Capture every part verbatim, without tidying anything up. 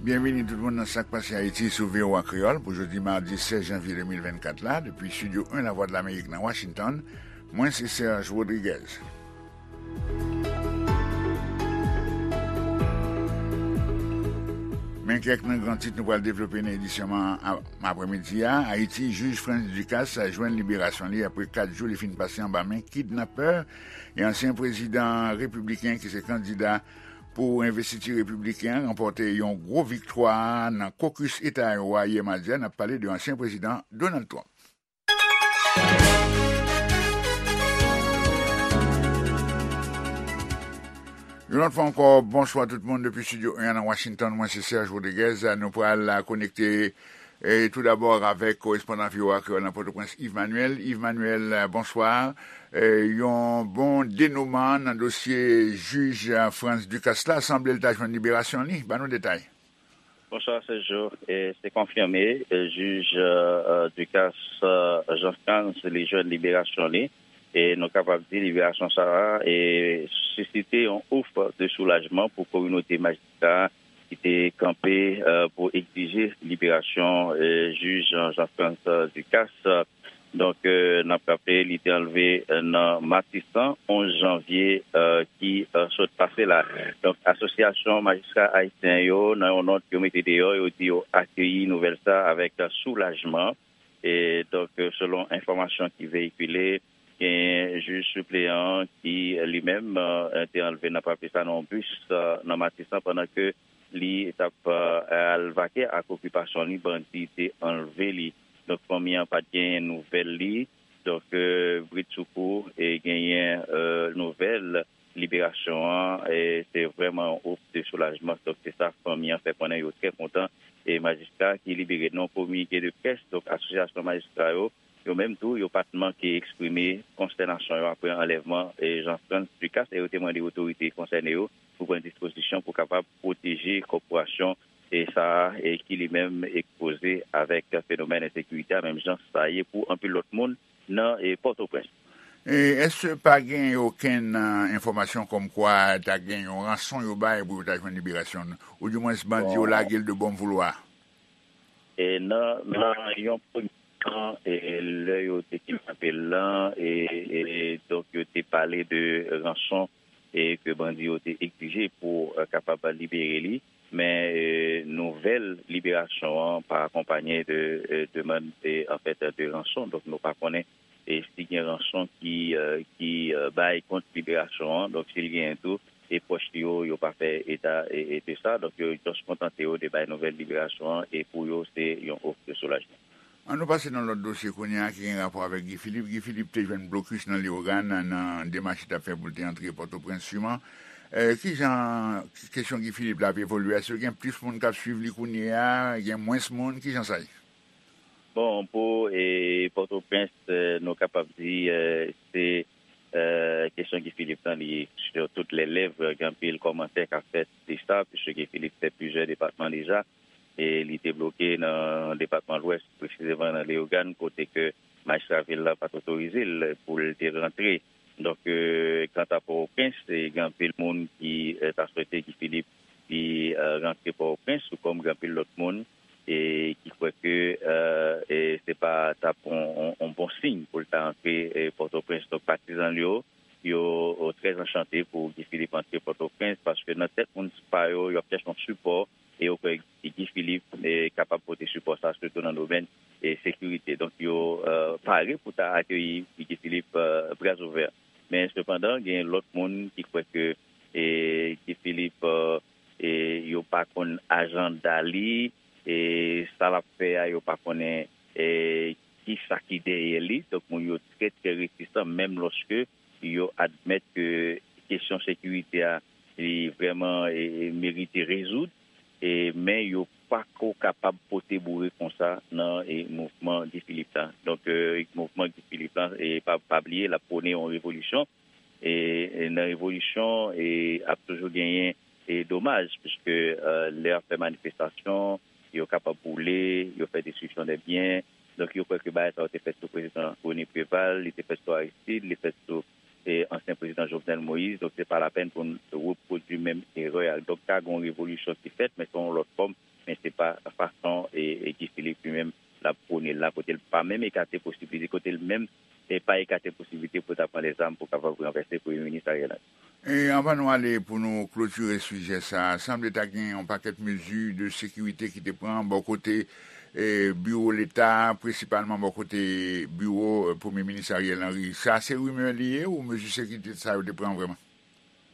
Byenvini tout moun nan Sa k Pase Ayiti sou V O A Kreyòl pou jodi madi sèz janvye de mil vennkat la, depi Estidyo en Lavwadlamerik nan Washington. Mwen se Serge Rodriguez. Men kèk nan gran tit nou pral devlope nan edisyon an aprèmidi a. Ayiti, jij Frantz Ducasse jwenn liberasyon li apre kat jou li fin pase anba men kidnapè. E ansyen prezidan repibliken ki se kandida pou envestiti repibliken an ranpòte yon gwo viktwa nan kokis Eta Iowa yè madi a. N ap pale de ansyen prezidan Donald Trump. Yon lòt fwa ankò, bonswa tout moun depi Estidyo en nan Washington. Mwen se Serge Rodriguez. Nou pral konekte e tou dabò avèk korespondan V O A Kreyòl nan Pòtoprens, Yves Manuel. Yves Manuel, bonswa. E, yon bon denouman nan dosye jij Frantz Ducasse la, sanble l ta jwenn liberasyon li. Ban nou detay. Bonswa, Sergio. E, se konfime, e, jij, e, Ducasse, e, Jean Frantz, li jwenn liberasyon li. E nou kapab di liberasyon sa a, e, sisite yon ouf de soulajman pou kominote majistra ki te kanpe, e, pou egzije liberasyon, e, jij Jean, Jean Frantz Ducasse. Donk, e, n ap raple, li te anlve, e, nan Matisan, onz janvye, e, ki, e, sot pase la. Donk, Asosyasyon Majistra Ayisyen yo, nan yon nòt yo mete deyò, yo di yo akeyi nouvèl sa avèk soulajman. E donk, e, selon enfòmasyon ki veyikile, gen jij sipleyan ki, e, li menm, e, te anlve, n ap raple sa, nan yon bis, e, nan Matisan, pandan ke li t ap, e, al vake ak okipasyon li, bandi te anlve li. Donk, fanmi an pa t genyen nouvèl li. Donk, e, bridsoukou, e, genyen, e, nouvèl liberasyon an, e, se vrèman yon ouf de soulajman. Donk, se sa fanmi an fè konnen, yo trè kontan. E majistra ki libere, nan yon kominike de près, donk, asosyasyon majistra yo, yo menm tou, yo pa t manke eksprime konstènasyon yo apre anlèvman, e, Jean Frantz Ducasse, e yo te mande otorite konsène yo pou pran dispozisyon pou kapab pwoteje kòporasyon, e, sa a, e, ki li menm ekspoze avèk fenomèn ensekirite a, menm jan sa ye pou anpil lòt moun nan, e, Pòtoprens. E èske pa gen okenn, e, enfòmasyon kòmkwa ta gen yon ranson yo bay pou yo ta jwenn liberasyon, oudimwens bandi yo Bon. lage l de bon voulwa? E nan, nan yon premye tan, e, lè yo te kidnape l lan, e, e, donk, yo te pale de ranson, e, ke bandi yo te egzije pou, e, kapab libere li. Men, e, nouvèl liberasyon an pa akonpanye de, e, demann, e, anfèt, de ranson. Donk, nou pa konnen, e, si gen ranson ki, e, ki, e, bay kont liberasyon an. Donk, si l genyen tou, e pwòch li yo, yo pa fè eta, e, e, de sa. Donk, yo just kontante yo de bay nouvèl liberasyon an, e pou yo, se yon ouf de soulajman. An nou pase nan lòt dosye kounye a ki gen rapò avèk Guy Philippe. Guy Philippe te jwenn blokis nan Leyogàn nan demach li t ap fè pou l te antre Pòtoprens siman. E, kijan kesyon Guy Philippe la ap evolye? Èske gen plis moun k ap swiv li kounye a? Gen mwens moun? Kijan sa ye? Bon, pou, e, Pòtoprens, e, nou kapab di, e, se, e, kesyon Guy Philippe lan, li sur toutes les lèvres, gen anpil kòmantè k ap fèt de sa, puisque Guy Philippe fè plizyè depatman deja, e li te bloke nan depatman Lwès, presizeman nan Leyogàn, kote ke majistra vil la pa t otorize l pou l te rantre. Donk, e, kanta Pòtoprens, e, gen anpil moun ki, e, ta swete Guy Philippe li, e, rantre Pòtoprens, tou kòm gen anpil lòt moun, e, ki kwè ke, e, e, se pa t ap on, on, on bon siy pou l ta rantre, e, Pòtoprens. Donk, patizan l yo, yo, yo trè anchante pou Guy Philippe antre Pòtoprens, paske nan tèt moun pa yo, y ap chèche yon sipò, e yo kwè Guy Philippe, e, kapab pote sipò sa, sitou nan domèn, e, sekirite. Donk, yo, e, pare pou ta akeyi Guy Philippe, e, bras ouvè. Men, sepandan, gen lòt moun ki kwè ke, e, Guy Philippe, e, e, yo pa konn ajanda li, e, sa l ap fè a, yo pa konnen, e, ki sa ki dèyè li. Donk, moun yo trè, trè retisan, menm lòske yo admèt ke kesyon sekirite a, li vrèman, e, e, merite rezoud, e, men yo pako kapab pote boure konsa nan, e, mouvman Guy Philippe la. Donk, e, mouvman Guy Philippe la, e, pa, pa bliye, l ap pwone yon revolisyon. E, e nan revolisyon, e, ap toujou genyen, e, domaj, piske, e, lè y ap fè manifestasyon, yo kapab boule, yo fè destriksyon de byen. Donk, yo kwè ke bagay sa yo te fèt sou prezidan René Préval, li te fèt sou Aristide, li fèt sou, e, ansyen prezidan Jovenel Moïse. Donk, se pa lapèn pou n repwodui menm erè a. Donk, ka gen yon revolisyon ki fèt, men se yon lòt fòm men se pa fason e, e Guy Philippe li menm l ap pwone l la, kote l pa menm ekate posibilite, kote l menm e pa ekate posibilite pou ta pran lèzam pou kapab ranvèse Premye Minis Ariel Henry. E anvan nou ale pou nou klotire sijè sa a, sanble ta gen yon pakèt mezi de sekirite ki te pran bò kote e, biwo Leta, prensipalman bò kote biwo e, Premye Minis Ariel Henry. Sa se rimè li ye ou mezi sekirite sa yo te pran vrèman?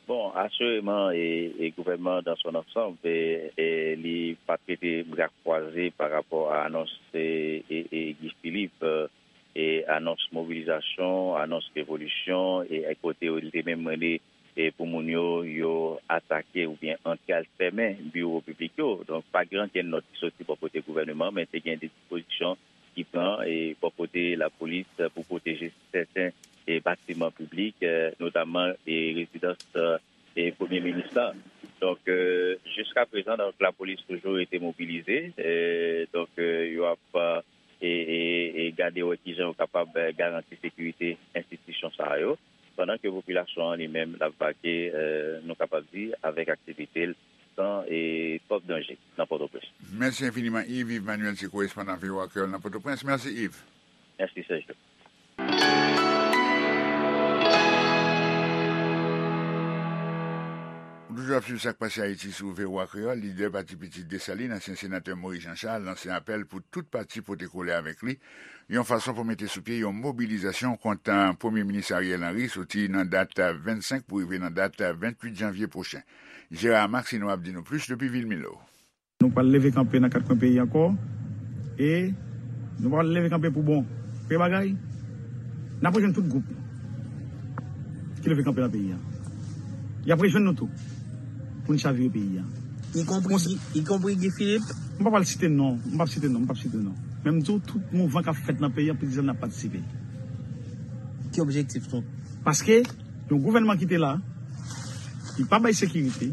Bon, asireman, e, e gouvènman dans son ensemble, e, e li pa t rete bra kwaze pa rapò a anons e, e, e Guy Philippe, e, e anons mobilizasyon, anons revolisyon, e, e kote li te menm rele e pou moun yo, yo atake oubyen antre al fèmen biwo piblik yo. Donk, pa gen ankenn nòt ki soti bò kote gouvèneman, men te gen de dispozisyon ki pran e bò kote lapolis pou pwoteje sèten e batiman piblik, e, notamman e rezidans e premye minis la. Donk, e, jiska prezan, donk, lapolis toujou rete mobilize. E, donk, e, yo ap e, e, e gade wè kijan yo kapab e, garanti sekirite enstitisyon sa yo, pandan ke popilasyon an li menm l ap vake, e, nou kapab di, avèk aktivite l san e twòp danje nan Pòtoprens. Mèsi enfiniman, Yves. Yves Manuel se korespondan V O A Kreyòl nan Pòtoprens. Mèsi, Yves. Mèsi, Sergio. Ou toujou ap swiv Sa k Pase Ayiti sou V O A Kreyòl. Lidè Pati Pitit Desalin, ansyen senatè Moïse Jean Charles, lanse apèl pou tout pati pote kole avèk li, yon fason pou mete sou pye yon mobilizasyon kont Premye Minis Ariel Henry, soti nan dat vennsenk pou rive nan dat venntuit janvye pwochen. Gérard Maxineau ap di nou plis depi vil Milo. Nou pral leve kanpe nan kat kwen peyi ankò. E nou pral leve kanpe pou bon. Premye bagay, n ap rejwenn tout gwoup ki leve kanpe nan peyi a. Y ap rejwenn nou tou pou n chavire peyi a. Ikonpri, ikonpri Guy Philippe. M pa pral site non, m p ap site non, m p ap site non. Men m di w, tout mouvman k ap fèt nan peyi a, plizyè n ap patisipe. Ki objektif nou? Paske yon gouvènman ki te la, li pa bay sekirite,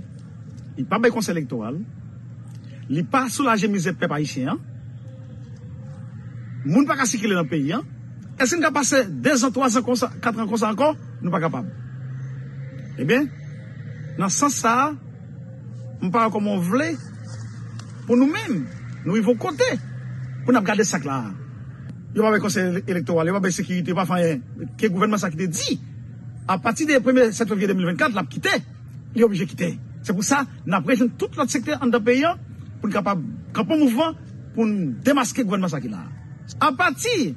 li pa bay konsèy elektoral, li pa soulaje mizè pèp ayisyen an. Moun pa ka sikile nan peyi an. Èske n ka pase dezan, twazan konsa, katran konsa ankò? Nou pa kapab. Ebyen, nan sans sa a, m pa wè kòman w vle pou nou menm, nou rive yon kote pou n ap gade sa k la a. Yo pa bay konsèy ele-, elektoral, yo pa bay sekirite, yo pa fè anyen. Ke gouvènman sa ki te di, apati de premye sèt fevriye de mil vennkat, l ap kite, li oblije kite. Se pou sa, n ap rejwenn tout lòt sektè anndan peyi an pou n kapab kanpe yon mouvman pou n demaske gouvènman sa ki la a. Apati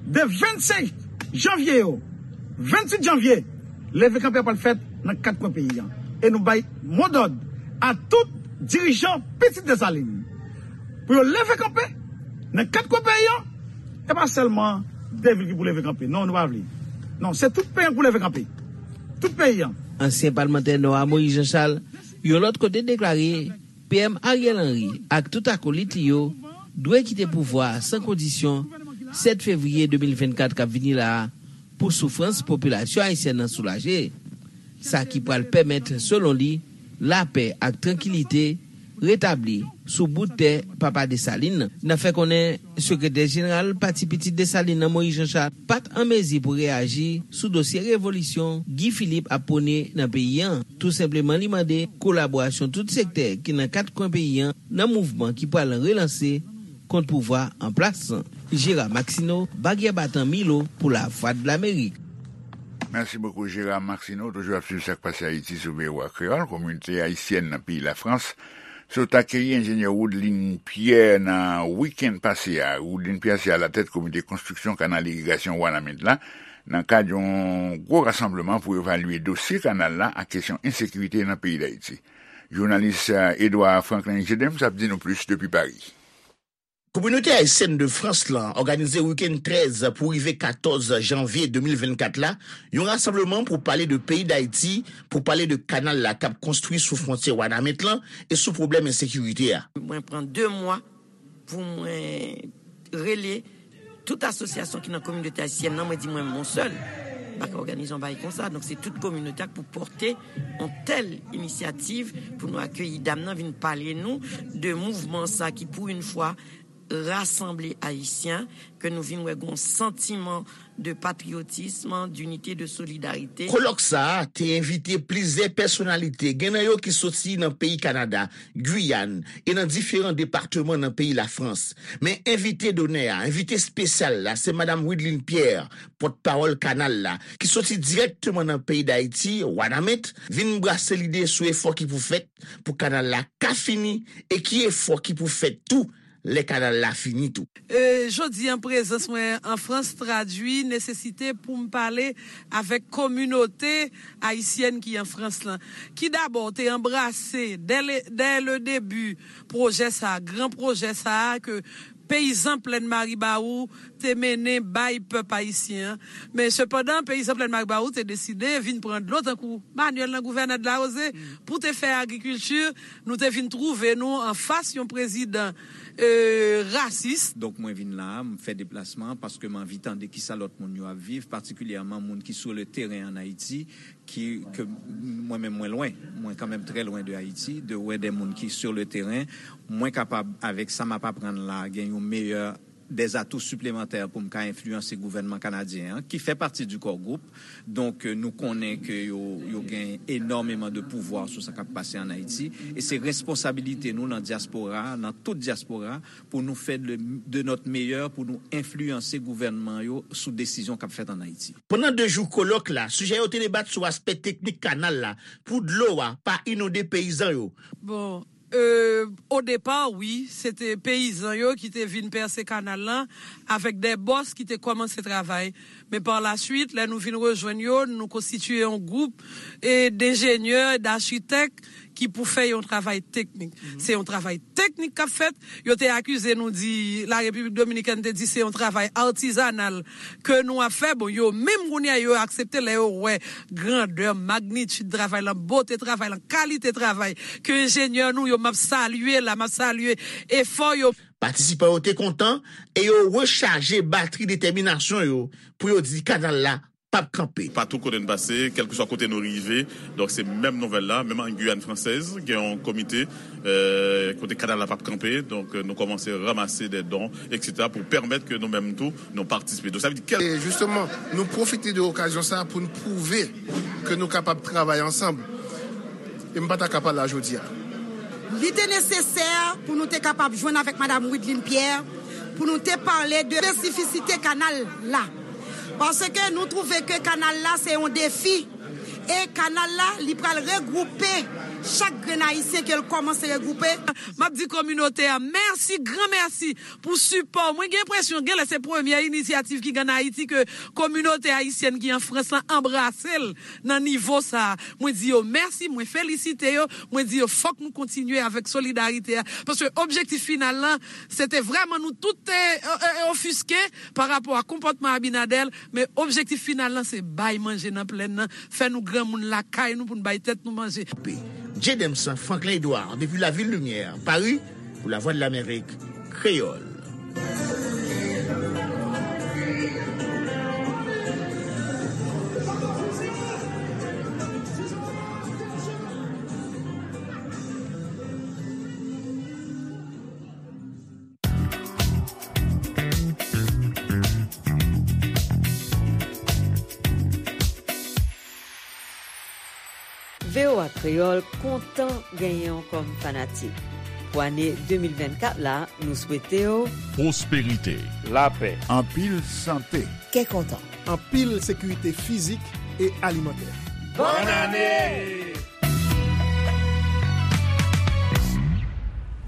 de vennsenk janvye yo, venntuit janvye, leve kanpe a pral fèt nan kat kwen peyi an. E nou bay modòd a tout dirijan Pitit Desalin pou yo leve kanpe nan kat kwen peyi an. E pa sèlman de vil ki pou leve kanpe. Non, nou pa vle. Non, se tout peyi an pou leve kanpe. Tout peyi an. Ansyen palmantè Nò a Moïse Jean Charles, yon lòt kote, deklare P M Ariel Henry ak tout akolit li yo dwe kite pouvwa a san kondisyon sèt fevriye de mil vennkat k ap vini la a pou soufrans popilasyon ayisyèn nan soulaje. Sa ki pral pèmèt, selon li, lapè ak trankilite retabli sou bout tè Papa Desalin nan. N ap fè konnen sekretè jeneral Pati Pitit Desalin nan, Moïse Jean Charles, pa t an mezi pou reyaji sou dosye revolisyon Guy Philippe ap pwone nan peyi an. Tou senpleman, li mande kolaborasyon tout sektè ki nan kat kwen peyi an nan mouvman ki pral relanse kont pouvwa an plas lan. Gérard Maxineau, Bagyè Batan, Milo, pou Lavwadlamerik. Mèsi bokou, Gérard Maxineau. Toujou ap swiv Sa k Pase Ayiti sou V O A Kreyòl. Kominote ayisyèn nan peyi Lafrans sot akeyi enjenyè Woodlin Pierre nan wikenn pase a. Woodlin Pierre se alatèt komite konstriksyon kanal irigasyon Wanament la, nan kad yon gwo rasanbleman pou evalye dosye kanal la ak kesyon ensekirite nan peyi Dayiti. Jounalis, eh, Edouard Franklin Gedems ap di nou plis depi Paris. Kominote ayisyèn de Frans lan òganize wikenn trèz pou rive katòz janvye de mil vennkat la, yon rasanbleman pou pale de peyi Dayiti, pou pale de kanal la k ap konstwi sou fwontyè Wanament lan e sou pwoblèm ensekirite a. Mwen pran de mwa pou mwen rele tout asosyasyon ki nan kominote ayisyèn nan, mwen di mwen menm yon sèl m pa ka òganize yon bagay konsa. Donk, se tout kominote a k pou pòte yon tèl inisyativ pou nou akeyi dam nan vin pale nou de mouvman sa ki, pou yon fwa, rasanble Ayisyen, ke nou vin wè gon santiman de patriyotism, dinite, de solidarite. Kolòk sa a te envite plizyè pèsonalite, gen nan yo ki soti nan peyi Kanada, Giyàn e nan diferan depatman nan peyi Lafrans. Men envite donè a, envite espesyal la, se Madanm Wideline Pierre, pòtpawòl kanal la, ki soti dirèkteman nan peyi Dayiti, Wanament, vin brase lide sou efò ki pou fèt pou kanal la ka fini e ki efò ki pou fèt tou lè kanal la fini tou. E, jodi an, prezans mwen an Frans tradui nesesite pou m pale avèk kominote ayisyèn ki an Frans lan, ki dabò te anbrase dè le, dè le debi pwojè sa a, gran pwojè sa a ke peyizan Plèn Maribawou te mennen bay pèp ayisyen an. Men sepandan, peyizan Plèn Maribawou te deside vin pran dlo tankou Manuel nan Gouvènè de la Rosée pou te fè agrikilti. Nou te vin twouve nou anfas yon prezidan, e, rasis. Donk, mwen vin la a, m fè deplasman an paske m anvi tande kisa lòt moun yo ap viv, patikilyèman moun ki sou le teren ann Ayiti, ki, ke mwen menm mwen lwen, mwen kanmenm trè lwen de Ayiti, de wè de moun ki sur le terrain, mwen kapab, avèk sa m ap aprann la, gen yon meyè, des atouts supplémentaires pou m ka enfliyanse gouvènman kanadyen an, ki fè pati du Core Group. Donk, nou konnen ke yo, yo gen enòmeman de pouvwa sou sa k ap pase ann Ayiti. E se responsabilite nou nan dyaspora, nan tout dyaspora, pou nou fè de, de notre meilleur pou nou enfliyanse gouvènman yo sou desizyon k ap fèt ann Ayiti. Pandan de jou kolòk la, sijè yo te debat sou aspè teknik kanal la pou dlo a pa inonde peyizan yo. Bon, e, o depa, wi, se te peyizan yo ki te vin pèse kanal lan avèk de bòs ki te kòmanse travay. Men pa la swit, lè nou vin rejwenn yo, nou konstitiye yon gwoup, e, denjenyè, dachitèk ki pou fè yon travay teknik. Se yon travay teknik k ap fèt. Yo te akize nou di, La Repiblik Dominikèn te di se yon travay atizanal ke nou ap fè. Bon, yo menm kounye a, yo aksepte lè yo wè grandè, magnitid travay lan, bote travay lan, kalite travay ke enjenyè nou yo, m ap salye la, m ap salye efò yo. Patisipan yo te kontan e yo rechaje batri detèminasyon yo pou yo di kanal la p ap kanpe. Patou kote n pase, kèlkeswa kote nou rive, donk se menm nouvèl la, menm an Guyane Française, gen yon komite, euh, kote kanal la p ap kanpe, donk, euh, nou kòmanse ranmase de don, et cetera, pou pèmèt ke nou menm tou, nou patisipe. Donk, sa vle di kèl- E jisteman, nou pwofite de okazyon sa a pou n pwouve ke nou kapab travay ansanm. E m pa ta ka pa la jodi a. Li te nesesè pou nou te kapab jwenn avèk Madanm Wideline Pierre, pou nou te pale de espesifisite kanal la. Paske nou twouve ke kanal la se yon defi. E kanal la, li pral regwoupe chak grenn Ayisyen ke l kòmanse regwoupe. M ap di kominote a mèsi, gran mèsi pou sipò. Mwen gen enpresyon, genlè se premyè inisyativ ki gen ann Ayiti ke kominote ayisyèn ki an Frans lan anbrase l nan nivo sa a. Mwen di yo mèsi, mwen felisite yo, mwen di yo fòk nou kontinye avèk solidarite a. Paske objektif final lan, se te vrèman nou tout te, e, e, e, ofiske pa rapò a konpòtman Abinader, men objektif final lan se bay manje nan plèn nan, fè nou granmoun lakay nou pou n bay tèt nou manje. Jedemson Franklin Edouard, depi Lavil Limyè, Paris, pou Lavwadlamerik Kreyòl. V O A Kreyòl kontan genyen w kòm fanatik. Pou ane de mil vennkat la, nou swete w pwosperite, lapè, anpil sante, kè kontan, anpil sekirite fizik e alimantè. Bòn ane!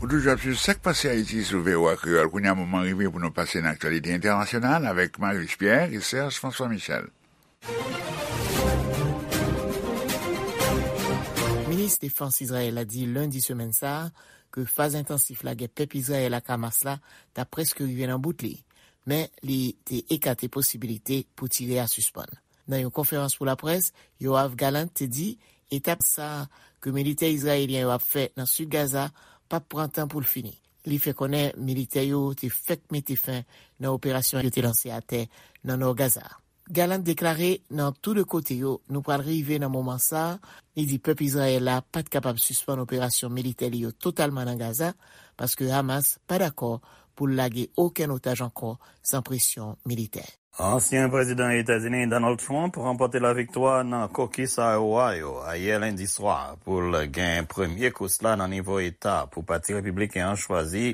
Ou toujou ap swiv Sa k Pase Ayiti sou V O A Kreyòl. Kounye a, moman rive pou nou pase nan aktyalite entènasyonal avèk Marius Pierre e Serge François Michel. Minis Defans Izrayèl la di lendi semèn sa a ke faz entansif lagè pèp Izrayèl ak Hamas la ta prèske rive nan bout li, men li te ekate posibilite pou tire a sispann. Nan yon konferans pou laprès, Yoav Gallant te di etap sa a ke militè izrayelyen yo ap fè nan sid Gaza p ap pran tan pou l fini. Li fè konnen militè yo te fèk mete fen nan operasyon yo te lanse atè nan nò Gaza a. Gallant deklare, nan tou de kote yo, nou pral rive nan moman sa a. Li di pèp Izrayèl la pa t kapab sispann operasyon militè li yo totalman nan Gaza, paske Hamas pa dakò pou l lage okenn otaj ankò san presyon militè. Ansyen prezidan Etazini Donald Trump ranpòte laviktwa nan kokis Iowa yo ayè lendi swa pou l gen premye kous la nan nivo eta pou Pati Repibliken an chwazi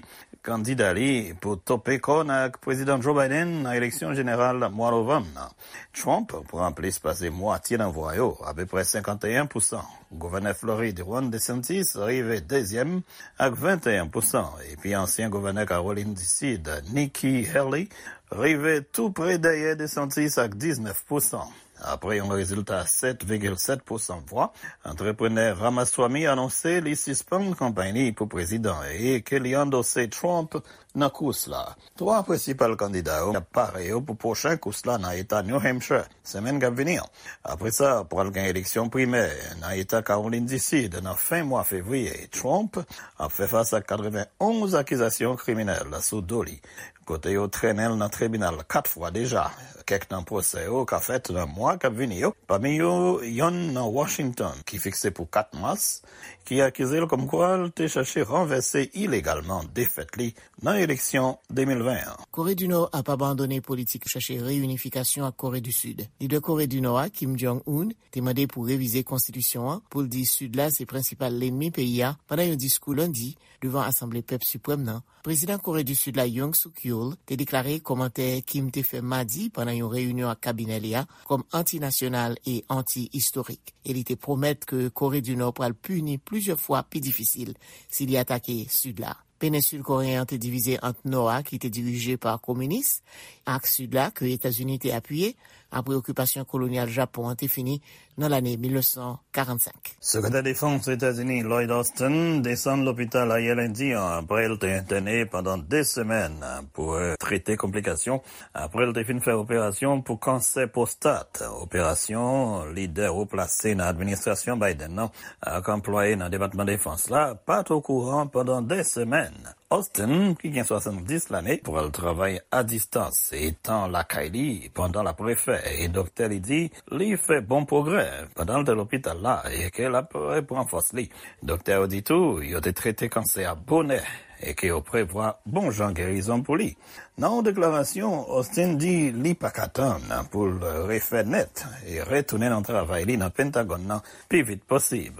kandida li pou tope kòn ak Prezidan Joe Biden nan eleksyon jeneral mwa novanm nan. Trump pran plis pase mwatye nan vwa yo, apeprè senkanteyen pousan. Gouvènè Florid Ron DeSantis rive dezyèm ak venteyen pousan, epi ansyen gouvènè Kawolin di Sid Nikki Haley rive tou pre dèyè DeSantis ak diznèf pousan. Apre yon rezilta sèt vigil sèt pousan vwa, antreprenè Ramaswamy anonse li sispann kanpay li pou prezidan e ke li andose Trump nan kous la. Twa prensipal kandida yo ap pare yo pou pwochen kous la nan eta New Hampshire semèn k ap vini an. Apre sa, pral gen eleksyon primè nan eta Kawolin di Sid nan fen mwa fevriye. Trump ap fè fas ak katrevenonz akizasyon kriminèl sou do li, kote yo trennen l nan tribinal kat fwa deja. Kèk nan pwosè yo ka fèt nan mwa k ap vini yo, pami yo yonn nan Washington ki fikse pou kat mas, ki akize l kòmkwa l te chache ranvèse ilegalman defèt li nan eleksyon de mil ven an. Kore di Nò ap abandone politik chache reyinifikasyon ak Kore di Sid. Lidè Kore di Nò a, Kim Jong-un, te mande pou revize konstitisyon an pou l di Sid la se prensipal lènmi peyi a pandan yon diskou lendi devan Asanble Pèp Siprèm nan. Prezidan Kore di Sid la, Yoon Suk Yeol, te deklare kòmantè Kim te fè madi pandan yon reyinyon ak kabinè li a kòm antinasyonal e anti-istorik, e li te pwomèt ke Kore di Nò pral pini plizyè fwa pi difisil si li atake Sid la. Penensil koreyen an te divize ant Nò a, ki te dirije pa kominis, ak Sid la, ke Etazini te apiye apre okipasyon kolonyal Japon an te fini nan lane mil nèf san karannsenk. Sekretè Defans Etazini Lloyd Austin desann lopital ayè lendi an apre l te entène pandan de semèn pou trete konplikasyon apre l te fin fè operasyon pou kansè pwostat. Operasyon lidè wo plase nan administrasyon Biden nan ak anplwaye nan Depatman Defans la pa t okouran pandan de semèn. Austin, ki gen swasanndis lane, pral travay a distans etan lakay li pandan l ap refè, e doktè li di li fè bon pwogrè pandan l te lopital la e ke l ap repran fòs li. Doktè yo di tou yo te trete kansè a bonè e ke yo prevwa bon jan gerizon pou li. Nan yon deklarasyon, Austin di li pa ka tann pou l refè nèt e retounen nan travay li nan Pentagòn nan pi vit posib.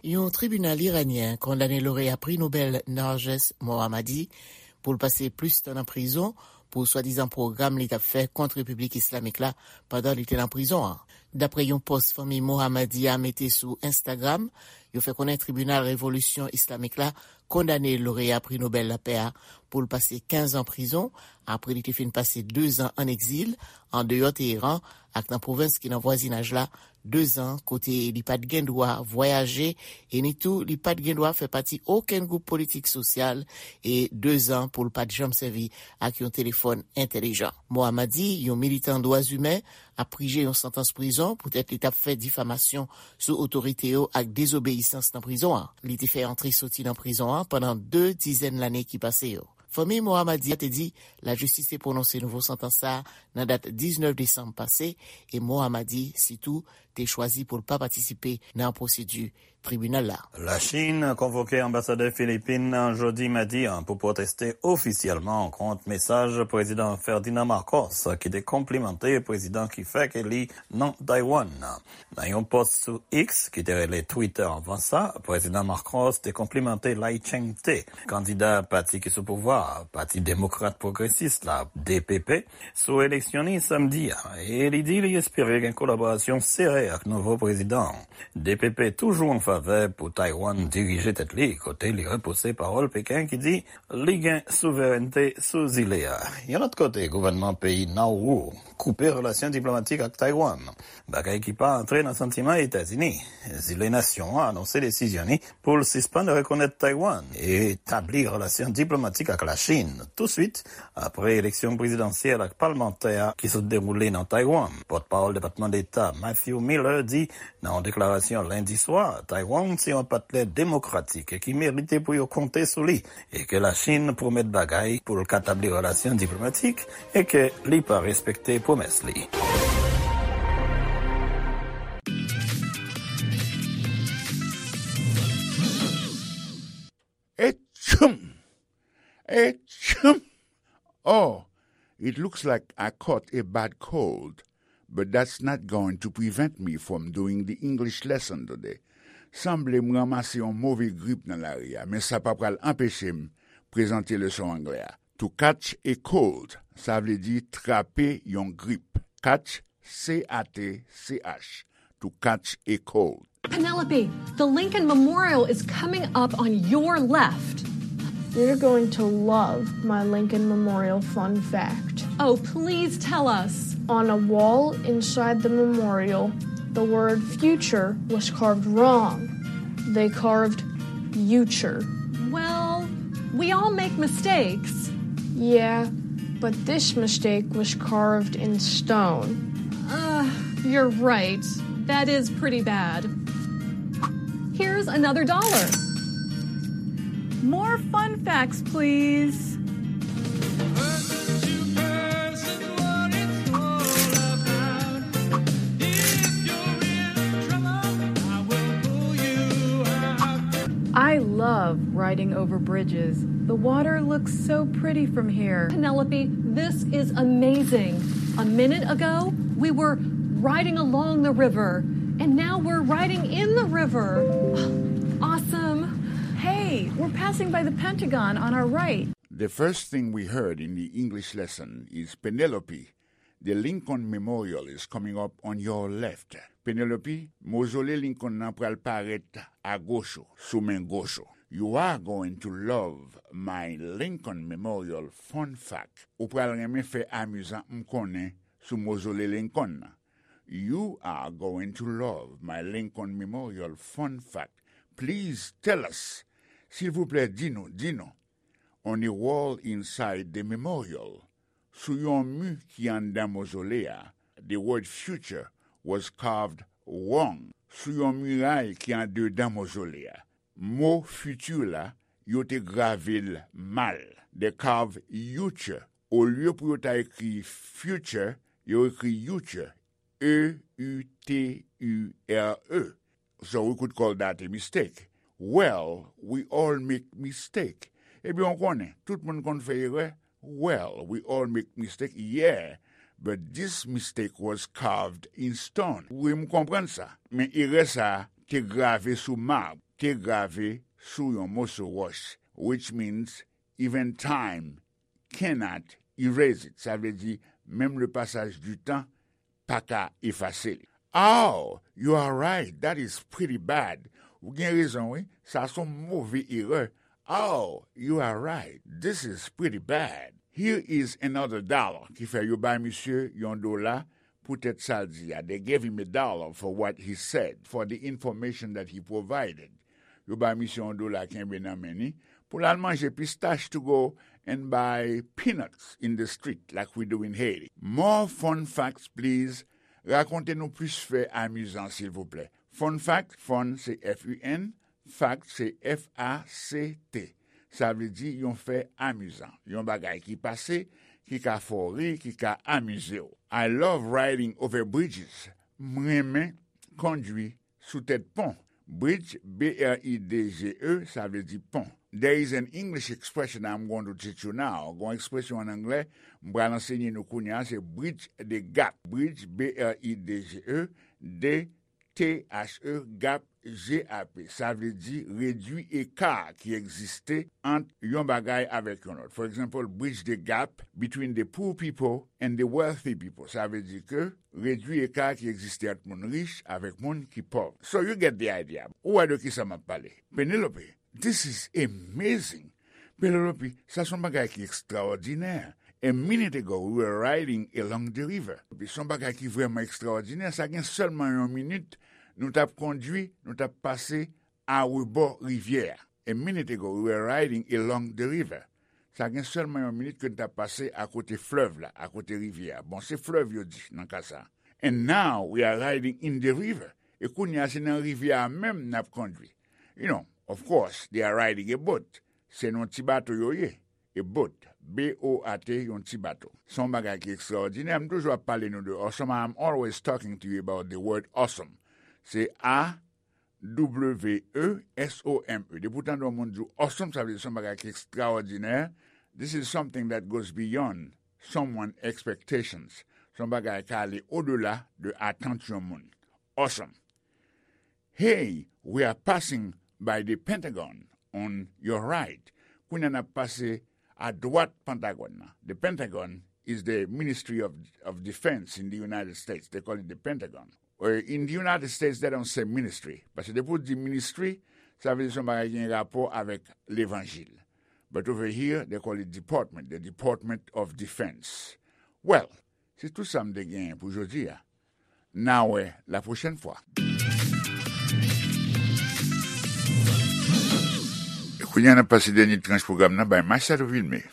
Yon tribinal iranyen kondane loreya pri Nobèl Narges Mohammadi pou l pase plis tan nan prizon pou swadizan pwogram li t ap fè kont Repiblik Islamik la pandan li te nan prizon an. Dapre yon pòs fanmi Mohammadi a mete sou Instagram, yo fè konnen Tribinal Revolisyon Islamik la kondane loreya pri Nobèl Lapè a pou l pase kenz an prizon, apre li te fin pase dezan an egzil andeyò Teheran ak nan pwovens ki nan vwazinaj la, dezan kote li pa t gen dwa vwayaje e ni tou li pa t gen dwa fè pati okenn gwoup politik sosyal, e dezan pou l pa t janm sèvi ak yon telefòn entèlijan. Mohammadi, yon militan dwa imen, ap prije yon santans prizon poutèt li t ap fè difamasyon sou otorite yo ak dezobeyisans nan prizon an. Li te fè antre soti nan prizon an pandan de dizèn lane ki pase yo. Fanmi Mohammadi a te di lajistis te pwononse nouvo santans sa a nan dat diznèf desanm pase, e Mohammadi sitou te chwazi pou l pa patisipe nan pwosedi tribinal la. Lachin konvoke anbasadè Filipin nan jodi madi an pou pwoteste ofisyèlman kont mesaj Prezidan Ferdinand Marcos, ki te konplimante prezidan ki fèk eli nan Taiwan nan. Nan yon pòs sou X, ki te rele Twitter anvan sa, Prezidan Marcos te konplimante Lai Ching-te, kandida pati ki sou pouvwa a, Pati Demokrat Pwogresis la, D P P, sou eleksyon li samdi a, e li di li espere gen kolaborasyon sere ak nouvo prezidan an. D P P toujou an favè pou Taiwan dirije tèt li, kote li repouse pawòl Peken ki di li gen souverènte sou zile a. Yon lòt kote, gouvènman peyi Nauru koupe relasyon diplomatik ak Taiwan, bagay ki pa antre nan santiman Etazini. Zile nasyon an anonse desizyon li pou l sispann rekonèt Taiwan e tabli relasyon diplomatik ak Lachin touswit apre eleksyon prezidansyèl ak palmantè a ki sot dewoule nan Taiwan. Pòtpawòl Depatman Deta Matthew Miller di nan yon deklarasyon lendi swa, Taiwan se yon patnè demokratik e ki merite pou yo konte sou li, e ke Lachin pwomèt bagay pou l ka tabli relasyon diplomatik e ke li pa respekte pwomès li. Et It looks like I caught a bad cold, but that's not going to prevent me from doing the English lesson today. Sanble m ranmase yon move grip nan lari a, men sa pa pral anpeche m prezante leson anglè a. To catch a cold, sa vle di trape yon grip. Catch, C A T C H, to catch a cold. Penelope, the Lincoln Memorial is coming up on your left. You're going to love my Lincoln Memorial fun fact. Oh, please tell us. On a wall inside the memorial, the word future was carved wrong. They carved future. Well, we all make mistakes. Yeah, but this mistake was carved in stone. Ugh, you're right. That is pretty bad. Here's another dollar. More fun facts, please. I love riding over bridges. The water looks so pretty from here. Penelope, this is amazing. A minute ago, we were riding along the river, and now we're riding in the river. Awesome. Hey, we're passing by the Pentagon on our right. The first thing we heard in the English lesson is Penelope, the Lincoln Memorial is coming up on your left. Penelope, mozole Lincoln nan pral parèt agoch ou, sou men goch ou. You are going to love my Lincoln Memorial fun fact. Ou pral renmen fè amizan m konnen sou mozole Lincoln nan. You are going to love my Lincoln Memorial fun fact. Please tell us. Silvouplè, di nou, di nou. On a wall inside the memorial, sou yon mi ki anndan mozole a, the word future was carved wrong. Sou yon miray ki andedan mozole a, mo future la, yo te grave l mal. They carve uture. Olye pou yo ta ekri future, yo ekri uture. E U T U R E. So we could call that a mistake. Well, we all make mistake. Ebyen, w konnen, tout moun konn fè erè. Well, we all make mistake, yeah, but this mistake was carved in stone. Wi, m konprann sa. Men erè sa a te grave sou mab, te grave sou yon moso wòch, which means even time cannot erase it. Sa vle di, menm le passage du temps pa ka efase li. Oh, you are right. That is pretty bad. Ou gen rezon, wi. Sa se yon move erè. Oh, you are right. This is pretty bad. Here is another dollar. Ki fè yo bay misye yon dola poutèt sa l di a. They gave him a dollar for what he said, for the information that he provided. Yo bay misye yon dola kenbe nan men ni pou l al manje pistach to go and buy peanuts in the street like we do in Haiti. More fun facts, please. Rakonte nou plis fè amizan, silvouplè. Fun fact, fun se F U N, fact se F A C T. Sa vle di yon fè amizan, yon bagay ki pase, ki ka fè w ri, ki ka amize w. I love riding over bridges. M renmen kondwi sou tèt pon. Bridge, B R I D G E, sa vle di pon. There is an English expression I'm going to teach you now. Gon ekspresyon an anglè, m pral ansenye nou kounye a, se bridge the gap. Bridge, B R I D G E, D T H E, gap, G A P. Sa vle di redwi eka ki egziste ant yon bagay avèk yon lòt. For example, bridge the gap between the poor people and the wealthy people. Sa vle di ke redwi eka ki egziste ant moun rich avèk moun ki pòv. So you get the idea. Ou wè de ki sa m ap pale. Penelope, this is amazing. Penelope, sa se yon bagay ki ekstraòdinè. A minute ago, we were riding along the river. Epi se yon bagay ki vrèman ekstraòdinè. Sa gen sèlman yon minit, nou t ap kondwi, nou t ap pase arebò rivyè a. A minute ago, we were riding along the river. Sa gen sèlman yon minit ke n t ap pase akote flèv la, akote rivyè a. Bon, se flèv yo di nan ka sa. And now we are riding in the river. E kounye a, se nan rivyè a menm n ap kondwi. You know, of course, they are riding a boat. Se nan ti bato yo ye. A boat. B O A T, yon ti bato. Se yon bagay ki ekstraòdinè. M toujou ap pale nou de awesome. I'm always talking to you about the word awesome. Se A W E S O M E. Depi w tande yon moun di w awesome, sa vle di se yon bagay ki ekstraòdinè. This is something that goes beyond someone expectations. Se yon bagay ka ale odela de atant yon moun. Awesome. Hey, we are passing by the Pentagon on your right. Kounye a n ap pase a dwat Pantagòn nan. The Pentagon is the Ministry of, of Defense in the United States. They call it the Pentagon. Uh, in the United States, they don't say ministry. Paske depi w di ministry, sa vle di se yon bagay ki gen rapò avèk levanjil. But over here, they call it department, the Department of Defense. Well, se tout sa m te genyen pou jodi a. N a wè la pwochèn fwa. E kounye a, n ap pase dènye tranch pwogram nan bay Machado Vilmé.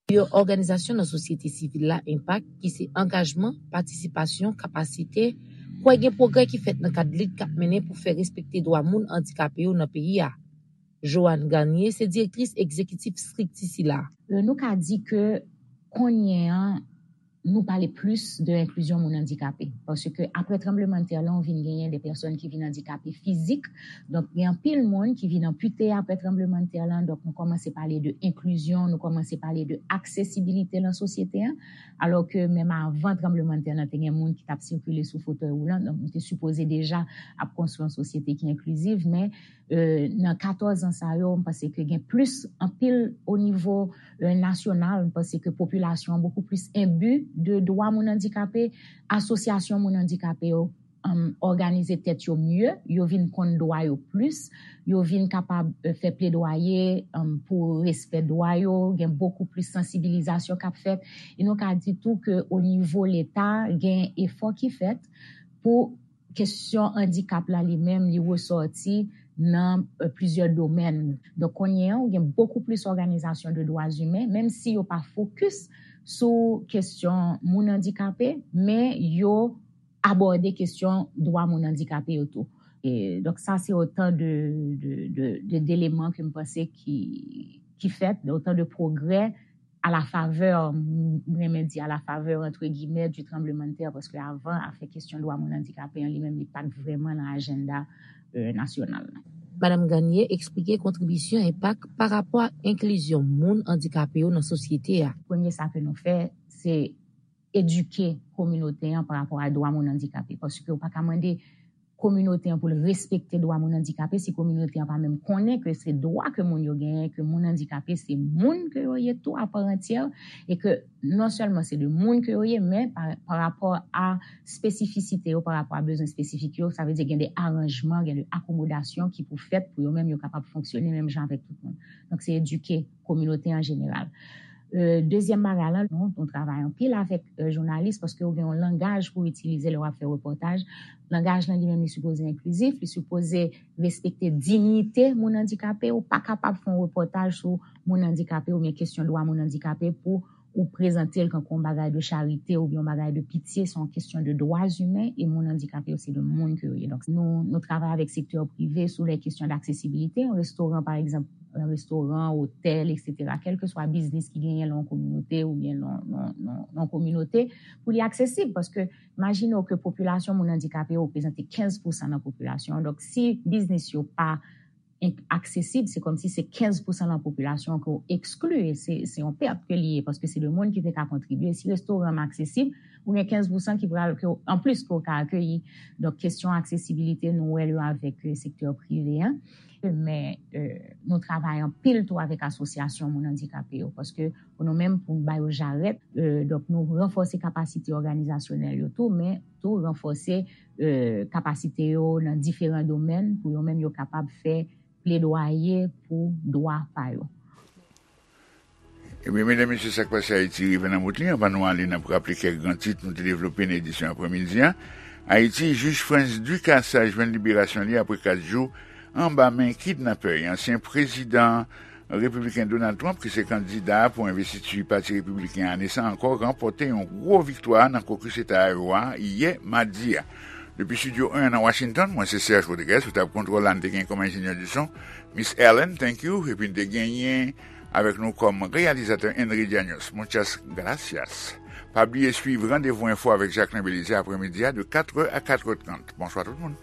Yon òganizasyon nan sosyete sivil la, enpak, ki se angajman, patisipasyon, kapasite, kwè gen pwogrè ki fèt nan kad lit k ap mennen pou fè respekte dwa moun andikape yo nan peyi a. Joanne Garnier se direktris egzekitif estrikti sila. Euh, nou ka di ke kounye an, nou pale plis de enklizyon moun andikape. Paske apre tranblemanntè lan, ou vin genyen de pèsòn ki vin andikape fizik. Donk, gen anpil moun ki vin anpite apre tranblemanntè lan. Donk, nou kòmanse pale de enklizyon, nou kòmanse pale de aksesibilite nan sosyete an. Alò ke menm avan tranblemanntè lan, te gen moun ki t ap sikile sou fotèy woulan. Donk, nou te sipoze deja ap konstwi yon sosyete ki enkliziv, men euh, nan katòz an sa yo, m panse ke gen plis anpil o nivo, euh, nasyonal. M panse ke popilasyon an bokou plis enbi de dwa moun andikape, asosyasyon moun andikape yo, um, òganize tèt yo mye, yo vin konn dwa yo plis, yo vin kapab, euh, fè pledwaye, um, pou respè dwa yo, gen bokou plis sansibilizasyon k ap fèt. E nou ka di tou ke o nivo Leta, gen efò ki fèt pou kesyon andikap la li menm, li resòti nan, euh, plizyè domèn. Donk, kounye an, ou gen bokou plis òganizasyon de dwa imen, menm si yo pa fokis sou kesyon moun andikape, men yo abòde kesyon dwa moun andikape yo tou. E, donk, sa se otan de, de, de, de, deleman ke m panse ki, ki fèt, otan de pwogrè a la favè, m renmen di a la favè, entre guillemets, du tremblement de terre, paske avan, afè kesyon dwa moun andikape an li menm, li pa t vrèman nan ajanda, euh, nasyonal la. Madam Garnier eksplike kontribisyon enpak pa rapò ak enklizyon moun andikape yo nan sosyete a. Premye sa ke nou fè, se edike kominote an pa rapò a dwa moun andikape, paske ou pa ka mande kominote an pou l respekte dwa moun andikape, si kominote an pa menm konnen ke se dwa ke moun yo genyen, ke moun andikape se moun ke yo ye tou a pa antyè, e ke non sèlman se de moun ke yo ye, men pa, pa rapò a espesifisite yo, pa rapò a bezwen espesifik yo, sa vle di gen de aranjman, gen de akomodasyon ki pou fèt pou yo menm yo kapab fonksyone menm jan avèk tout moun. Donk, se edike kominote an jeneral. Euh, dezyèm bagay la, nou, nou travay anpil avèk, euh, jounalis, paske ou gen yon langaj pou itilize lè w ap fè repòtaj. Langaj lan li menm, li sipoze enklizif, li sipoze respekte diyite moun andikape. Ou pa kapab fè yon repòtaj sou moun andikape oubyen kesyon dwa moun andikape pou ou prezante l kankou yon bagay de charite oubyen yon bagay de pitye. Se yon kesyon de dwa imen, e moun andikape yo se de moun ke yo ye. Donk, nou, nou travay avèk sektè prive sou lè kesyon d'aksesibilite. Yon restoran, pa egzanp, yon restoran, otèl, etsetera, kèlkeswa biznis ki genyen nan yon kominote oubyen nan, nan, nan, nan yon kominote, pou li aksesib. Paske, imajine w ke popilasyon moun andikape yo reprezante kenz pousan nan popilasyon an. Donk, si biznis yo pa en-, aksesib, se kòmsi se kenz pousan nan popilasyon an ke w ekskli, e se, se yon pèt ke li ye, paske se de moun ki te ka kontribye. Si restoran an aksesib, ou gen kenz pousan ki pral, ke w, anplis ke w ka akeyi. Donk, kesyon aksesibilite, nou wè l yo avèk, euh, sektè prive an. Men, euh, nou travay anpil tou avèk asosyasyon moun andikape yo, paske pou nou menm, pou n ba yo jarèt, euh, donk, nou ranfòse kapasite òganizasyonèl yo tou, men tou ranfòse, euh, kapasite yo nan diferan domèn pou yo menm yo kapab fè pledwaye pou dwa pa yo. Ebyen, medam, mesye, Sa k Pase Ayiti rive nan bout li. Anvan nou ale, n ap raple kèk gran tit nou te devlope nan edisyon aprèmidi a. Ayiti, jij Frantz Ducassage jwenn liberasyon li apre kat jou anba men kidnapè. Ansyen prezidan repibliken Donald Trump, ki se kandida pou envestiti Pati Repibliken ane sa ankò, ranpòte yon gwo viktwa nan kokis Eta Iowa yè madi a. Depi Estidyo en nan Washington, mwen se Serge Rodriguez, sou tab kontwòl la, n te gen kòm enjenyè di son, Miss Ellen, thank you, epi n te genyen avèk nou kòm reyalizatè Henry Dianos. Muchas gracias. Pa bliye swiv Randevou Enfo avèk Jacquelin Belizaire aprèmidi a de katrè a katrè trant. Bonswa tout moun.